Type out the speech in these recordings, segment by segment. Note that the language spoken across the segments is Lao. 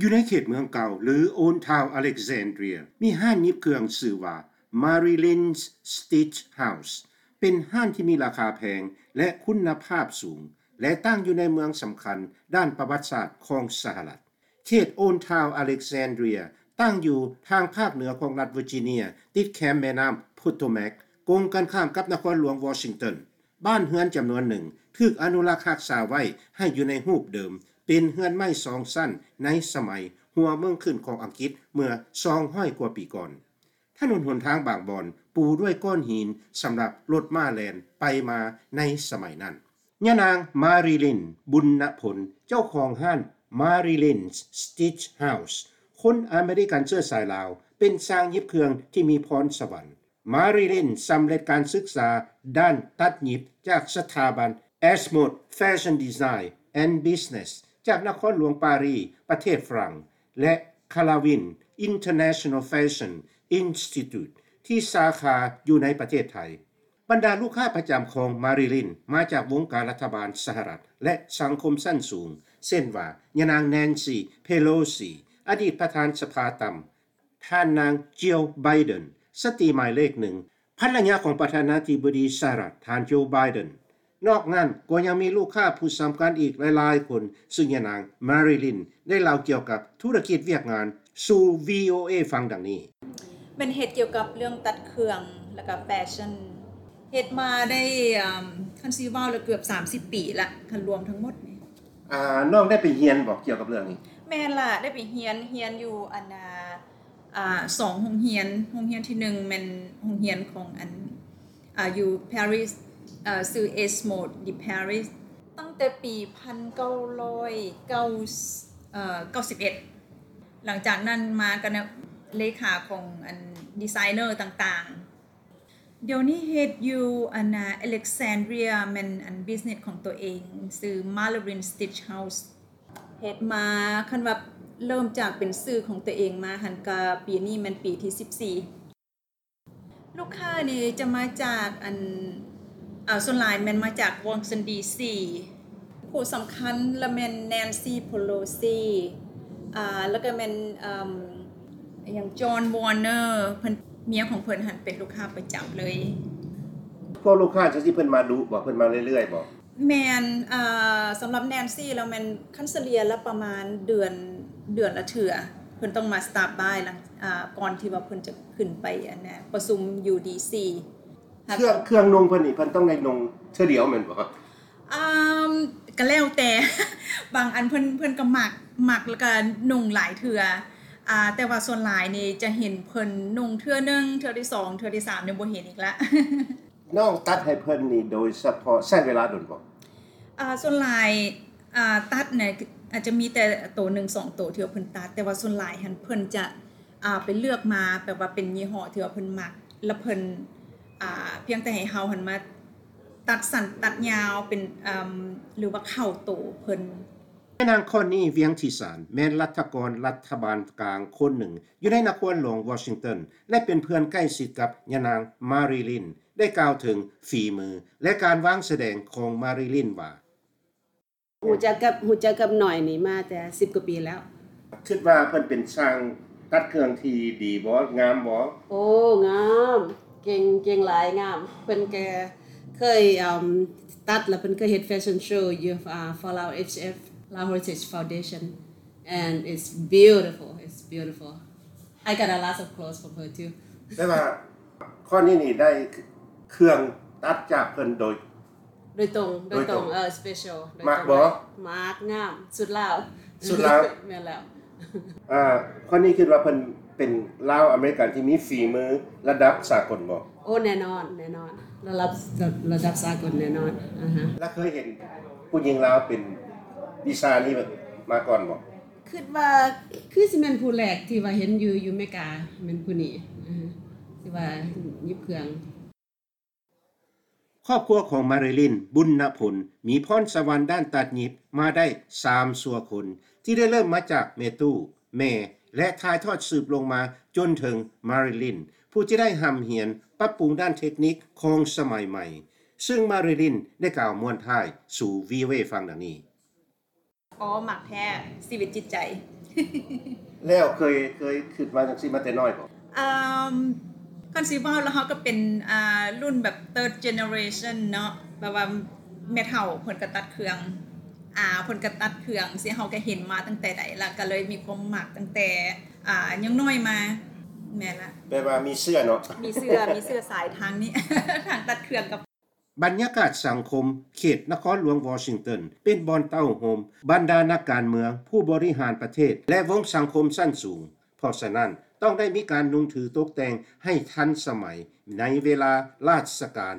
ຢູ່ໃນເຂດເມືອງເກົ່າ ຫຼື Old Town Alexandria ມີຮ້ານຫຍິບເຄື່ອງຊື່ວ່າ Marilyn's Stitch House ເປັນຮ້ານທີ່ມີລາຄາແພງ ແລະ ຄຸນນະພາບສູງ ແລະ ຕັ້ງຢູ່ໃນເມືອງສຳຄັນດ້ານປະຫວັດສາດຂອງສະຫະລັດ. ເຂດ Old Town Alexandria ຕັ້ງຢູ່ທາງພາກເໜືອຂອງລັດ Virginia ຕິດແຄມແມ່ນ້ຳ Potomac ກົງກັນຂ້າມກັບນະຄອນຫຼວງ Washington. ບ້ານເຮືອນຈຳນວນໜຶ່ງຖືກອະນຸລັກຮັກສາໄວ້ໃຫ້ຢູ່ໃນຮູບເດີມ, ເປັນເຮືອນໄມ້ສອງຊັ້ນໃນສະໄໝຫົວເມືອງຂຶ້ນຂອງອັງກິດເມື່ອສອງຮ້ອຍກວ່າປີກ່ອນ. ຖະໜົນຫົນທາງບາງບ່ອນປູດ້ວຍກ້ອນຫີນສຳລັບລົດມ້າແລ່ນໄປມາໃນສະໄໝນັ້ນ. ຍານາງ ມາຣີລິນ ບຸນນະພົນ ເຈົ້າຂອງຮ້ານ Marilyn's Stitch House ຄົນອາເມລິກັນເຊື້ອສາຍລາວ ເປັນຊ່າງຫຍິບເຄື່ອງທີ່ມີພອນສະຫວັນ. ມາຣີລິນສຳເລັດການສຶກສາດ້ານຕັດຫຍິບຈາກສະຖາບັນ Ashmont Fashion Design and Business ຈາກນະຄອນຫຼວງປາຣີ ປະເທດຝຣັ່ງ ແລະ Calvin International Fashion Institute ທີ່ສາຂາຢູ່ໃນປະເທດໄທ. ບັນດາລູກຄ້າປະຈຳຂອງມາຣີລິນມາຈາກວົງການລັດຖະບານສະຫະລັດ ແລະ ສັງຄົມຊັ້ນສູງ ເຊັ່ນວ່າ ຍານາງ Nancy Pelosi ອະດີດປະທານສະພາຕ່ຳ, ທ່ານນາງ Jill Biden ສະຕີໝາຍເລກໜຶ່ງ ພັນລະຍາຂອງປະທານາທິບໍດີສະຫະລັດ ທ່ານ Joe Biden. ນອກນັ້ນກໍຍັງມີລູກຄ້າຜູ້ສຳຄັນອີກຫຼາຍໆຄົນ, ຊຶ່ງຍານາງ ມາຣີລິນ ໄດ້ເລົ່າກ່ຽວກັບທຸລະກິດວຽກງານສູ່ VOA ຟັງດັ່ງນີ້. ແມ່ນເຮັດກ່ຽວກັບເລື່ອງຕັດເຄື່ອງ ແລ້ວກໍແຟຊັ່ນ. ເຮັດມາໄດ້ ເອີ່ມ ຄັນຊິເວົ້າແລ້ວເກືອບສາມສິບປີລະ ຄັນລວມທັງໝົດນີ້. ອ່າ ນ້ອງໄດ້ໄປຮຽນບໍ່ກ່ຽວກັບເລື່ອງນີ້? ແມ່ນລະ ໄດ້ໄປຮຽນ, ຮຽນຢູ່ອັນ ອ່າ ອ່າ ສອງໂຮງຮຽນ. ໂຮງຮຽນທີໜຶ່ງແມ່ນໂຮງຮຽນຂອງອັນ ອ່າ ຢູ່ Paris ເອີ່ ຊື່ Ashmont de Paris ຕັ້ງແຕ່ປີພັນເກົ້າຮ້ອຍເກົ້າ ເອີ່ ເກົ້າສິບເອັດ. ຫຼັງຈາກນັ້ນມາກໍເນາະ ເລຂາຂອງອັນດີໄຊເນີຕ່າງໆ. ດຽວນີ້ເຮັດຢູ່ອັນນາ Alexandria ແມ່ນອັນບິສເນັສຂອງຕົວເອງ ຊື່ Marilyn Stitch House. ເຮັດມາ ຄັນວ່າເລີ່ມຈາກເປັນຊື່ຂອງຕົວເອງມາຫັ້ນ ກະປີນີ້ແມ່ນປີທີສິບສີ່. ລູກຄ້ານີ້ຈະມາຈາກອັນ ເອີ່ ສ່ວນຫຼາຍແມ່ນມາຈາກວໍຊິງຕັນ ດີຊີ. ຜູ້ສຳຄັນລະແມ່ນ Nancy Pelosi ອ່າ ລະກະແມ່ນ ເອີ່ມ ຫຍັງ John Warner ເພິ່ນ ເມຍຂອງເພິ່ນຫັ້ນເປັນລູກຄ້າປະຈຳເລີຍ. ພວກລູກຄ້າຈັ່ງຊີ້ເພິ່ນມາດຸບໍ່? ເພິ່ນມາເລື້ອຍໆບໍ່? ແມ່ນ ເອີ່ ສຳລັບ Nancy ລະແມ່ນ ຄັນສະເລ່ຍລະປະມານເດືອນ ເດືອນລະເທື່ອ ເພິ່ນຕ້ອງມາ stop by ຫຼັງ ອ່າ ກ່ອນທີ່ວ່າເພິ່ນຈະຂຶ້ນໄປອັນນະ ປະຊຸມຢູ່ ດີຊີ. ເຄື່ອງ ເຄື່ອງນຸ່ງເພິ່ນນີ້ ເພິ່ນຕ້ອງໄດ້ນຸ່ງເທື່ອດຽວແມ່ນບໍ່? ອ່າ ກໍແລ້ວແຕ່ ບາງອັນເພິ່ນ ເພິ່ນກໍມັກ ມັກແລ້ວກໍນຸ່ງຫຼາຍເທື່ອ ອ່າ ແຕ່ວ່າສ່ວນຫຼາຍນີ້ຈະເຫັນເພິ່ນນຸ່ງເທື່ອໜຶ່ງ ເທື່ອທີສອງ ເທື່ອທີສາມນີ້ບໍ່ເຫັນອີກລະ. ນ້ອງຕັດໃຫ້ເພິ່ນນີ້ໂດຍສະເພາະໃຊ້ເວລາດົນບໍ່? ອ່າ ສ່ວນຫຼາຍ ອ່າ ຕັດນະ ອາດຈະມີແຕ່ໂຕໜຶ່ງສອງໂຕທີ່ວ່າເພິ່ນຕັດ ແຕ່ວ່າສ່ວນຫຼາຍຫັ້ນເພິ່ນຈະ ອ່າ ໄປເລືອກມາ ແບບວ່າເປັນຍີ່ຫໍ້ທີ່ວ່າເພິ່ນມັກ ລະເພິ່ນ ອ່າ ພຽງແຕ່ໃຫ້ເຮົາຫັ້ນມາຕັດສັ້ນຕັດຍາວເປັນ ເອີ່ມ ຫຼືວ່າເຂົ້າໂຕເພິ່ນ. ຍານາງ ຄອນນີ ວຽງທິສານ ແມ່ນລັດຖະກອນລັດຖະບານກາງຄົນໜຶ່ງຢູ່ໃນນະຄອນຫຼວງວໍຊິງຕັນ ແລະ ເປັນເພື່ອນໃກ້ຊິດກັບຍານາງ ມາຣີລິນ ໄດ້ກ່າວເຖິງຝີມື ແລະ ການວາງສະແດງຂອງມາຣີລິນວ່າ ຮູ້ຈັກກັບ ຮູ້ຈັກກັບນ້ອຍນີ້ມາແຕ່ສິບກວ່າປີແລ້ວ. ຄິດວ່າເພິ່ນເປັນຊ່າງຕັດເຄື່ອງທີ່ດີບໍ່? ງາມບໍ່? ໂອ້ ງາມ ເກັ່ງ ເກັ່ງຫຼາຍ ງາມ. ເພິ່ນກໍເຄີຍ ເອີ່ມ ຕັດ ແລ້ວເພິ່ນເຄີຍເຮັດແຟຊັ່ນໂຊຢູ່ ອ່າ Folau H F, Lao Heritage Foundation. And it's beautiful, it's beautiful. I got a lot of clothes from her too. ແຕ່ວ່າຄອນນີນີ້ໄດ້ເຄື່ອງຕັດຈາກເພິ່ນໂດຍ ໂດຍຕົງ ໂດຍຕົງ ໂດຍຕົງ ເອີ special ໂດຍຕົງ. ມັກບໍ່? ມັກ ງາມ ສຸດລາວ ສຸດລາວ. ແມ່ນແລ້ວ. ອ່າ ຄອນນີຄິດວ່າເພິ່ນເປັນລາວອາເມລິກັນທີ່ມີຝີມືລະດັບສາກົນບໍ່? ໂອ້ ແນ່ນອນ ແນ່ນອນ ລະດັບ ລະດັບສາກົນແນ່ນອນ. ອາຮະ. ແລ້ວເຄີຍເຫັນຜູ້ຍິງລາວເປັນວິຊານີ້ມາກ່ອນບໍ່? ຄິດວ່າຄືຊິແມ່ນຜູ້ແລກທີ່ວ່າເຫັນຢູ່ ຢູ່ເມກາ ແມ່ນຜູ້ນີ້ ອາ ທີ່ວ່າຫຍິບເຄື່ອງ. ຄອບຄົວຂອງມາຣີລິນ ບຸນນະພົນ ມີພອນສະຫວັນດ້ານຕັດຫຍິບມາໄດ້ສາມຊົ່ວຄົນ ທີ່ໄດ້ເລີ່ມມາຈາກແມ່ຕູ້, ແມ່ ແລະ ຖ່າຍທອດສືບລົງມາຈົນເຖິງມາຣີລິນ ຜູ້ທີ່ໄດ້ຮ່ຳຮຽນປັບປຸງດ້ານເທັກນິກຂອງສະໄໝໃໝ່, ຊຶ່ງມາຣີລິນໄດ້ກ່າວມ້ວນທ້າຍສູ່ VOA ຟັງດັ່ງນີ້. ອໍ ມັກແທ້ ຊີວິດຈິດໃຈ. ແລ້ວເຄີຍ ເຄີຍຄິດມາຈັ່ງຊີ້ມາແຕ່ນ້ອຍບໍ່? ເອີ່ມ ຄັນຊິເວົ້າແລ້ວ ເຮົາກໍເປັນ ອ່າ ລຸ້ນແບບ third generation ເນາະ ແບບວ່າແມ່ເຖົ້າເພິ່ນກໍຕັດເຄື່ອງ ອາ ເພິ່ນກໍຕັດເຄື່ອງ ຊິເຮົາກໍເຫັນມາຕັ້ງແຕ່ໃດ ແລ້ວກໍເລີຍມີຄວາມມັກຕັ້ງແຕ່ ອາ ຍັງນ້ອຍມາ. ແມ່ນລະ ແປວ່າມີເຊື້ອເນາະ ມີເຊື້ອ ມີເຊື້ອສາຍທາງນີ້ ທາງຕັດເຄື່ອງກັບ ບັນຍາກາດສັງຄົມເຂດນະຄອນຫຼວງວໍຊິງຕັນ ເປັນບ່ອນເຕົ້າໂຮມບັນດານັກການເມືອງ, ຜູ້ບໍລິຫານປະເທດ ແລະ ວົງສັງຄົມຊັ້ນສູງ, ເພາະສະນັ້ນ ຕ້ອງໄດ້ມີການນຸ່ງຖືຕົກແຕ່ງໃຫ້ທັນສະໄໝໃນເວລາລາຊະການ,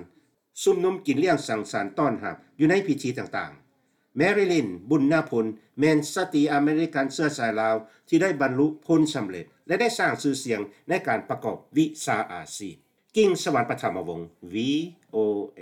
ຊຸມນຸມກິນລ້ຽງສັງສັນຕ້ອນຮັບຢູ່ໃນພິທີຕ່າງໆ. ແມຣີລິນ ບຸນນາພົນ ແມ່ນສະຕີອາເມລິກັນເຊື້ອສາຍລາວ ທີ່ໄດ້ບັນລຸຜົນສຳເລັດ ແລະ ໄດ້ສ້າງຊື່ສຽງໃນການປະກອບວິຊາອາຊີບ. ກິ່ງສະຫວັນ ປະຖະມະວົງ ວີໂອເອ.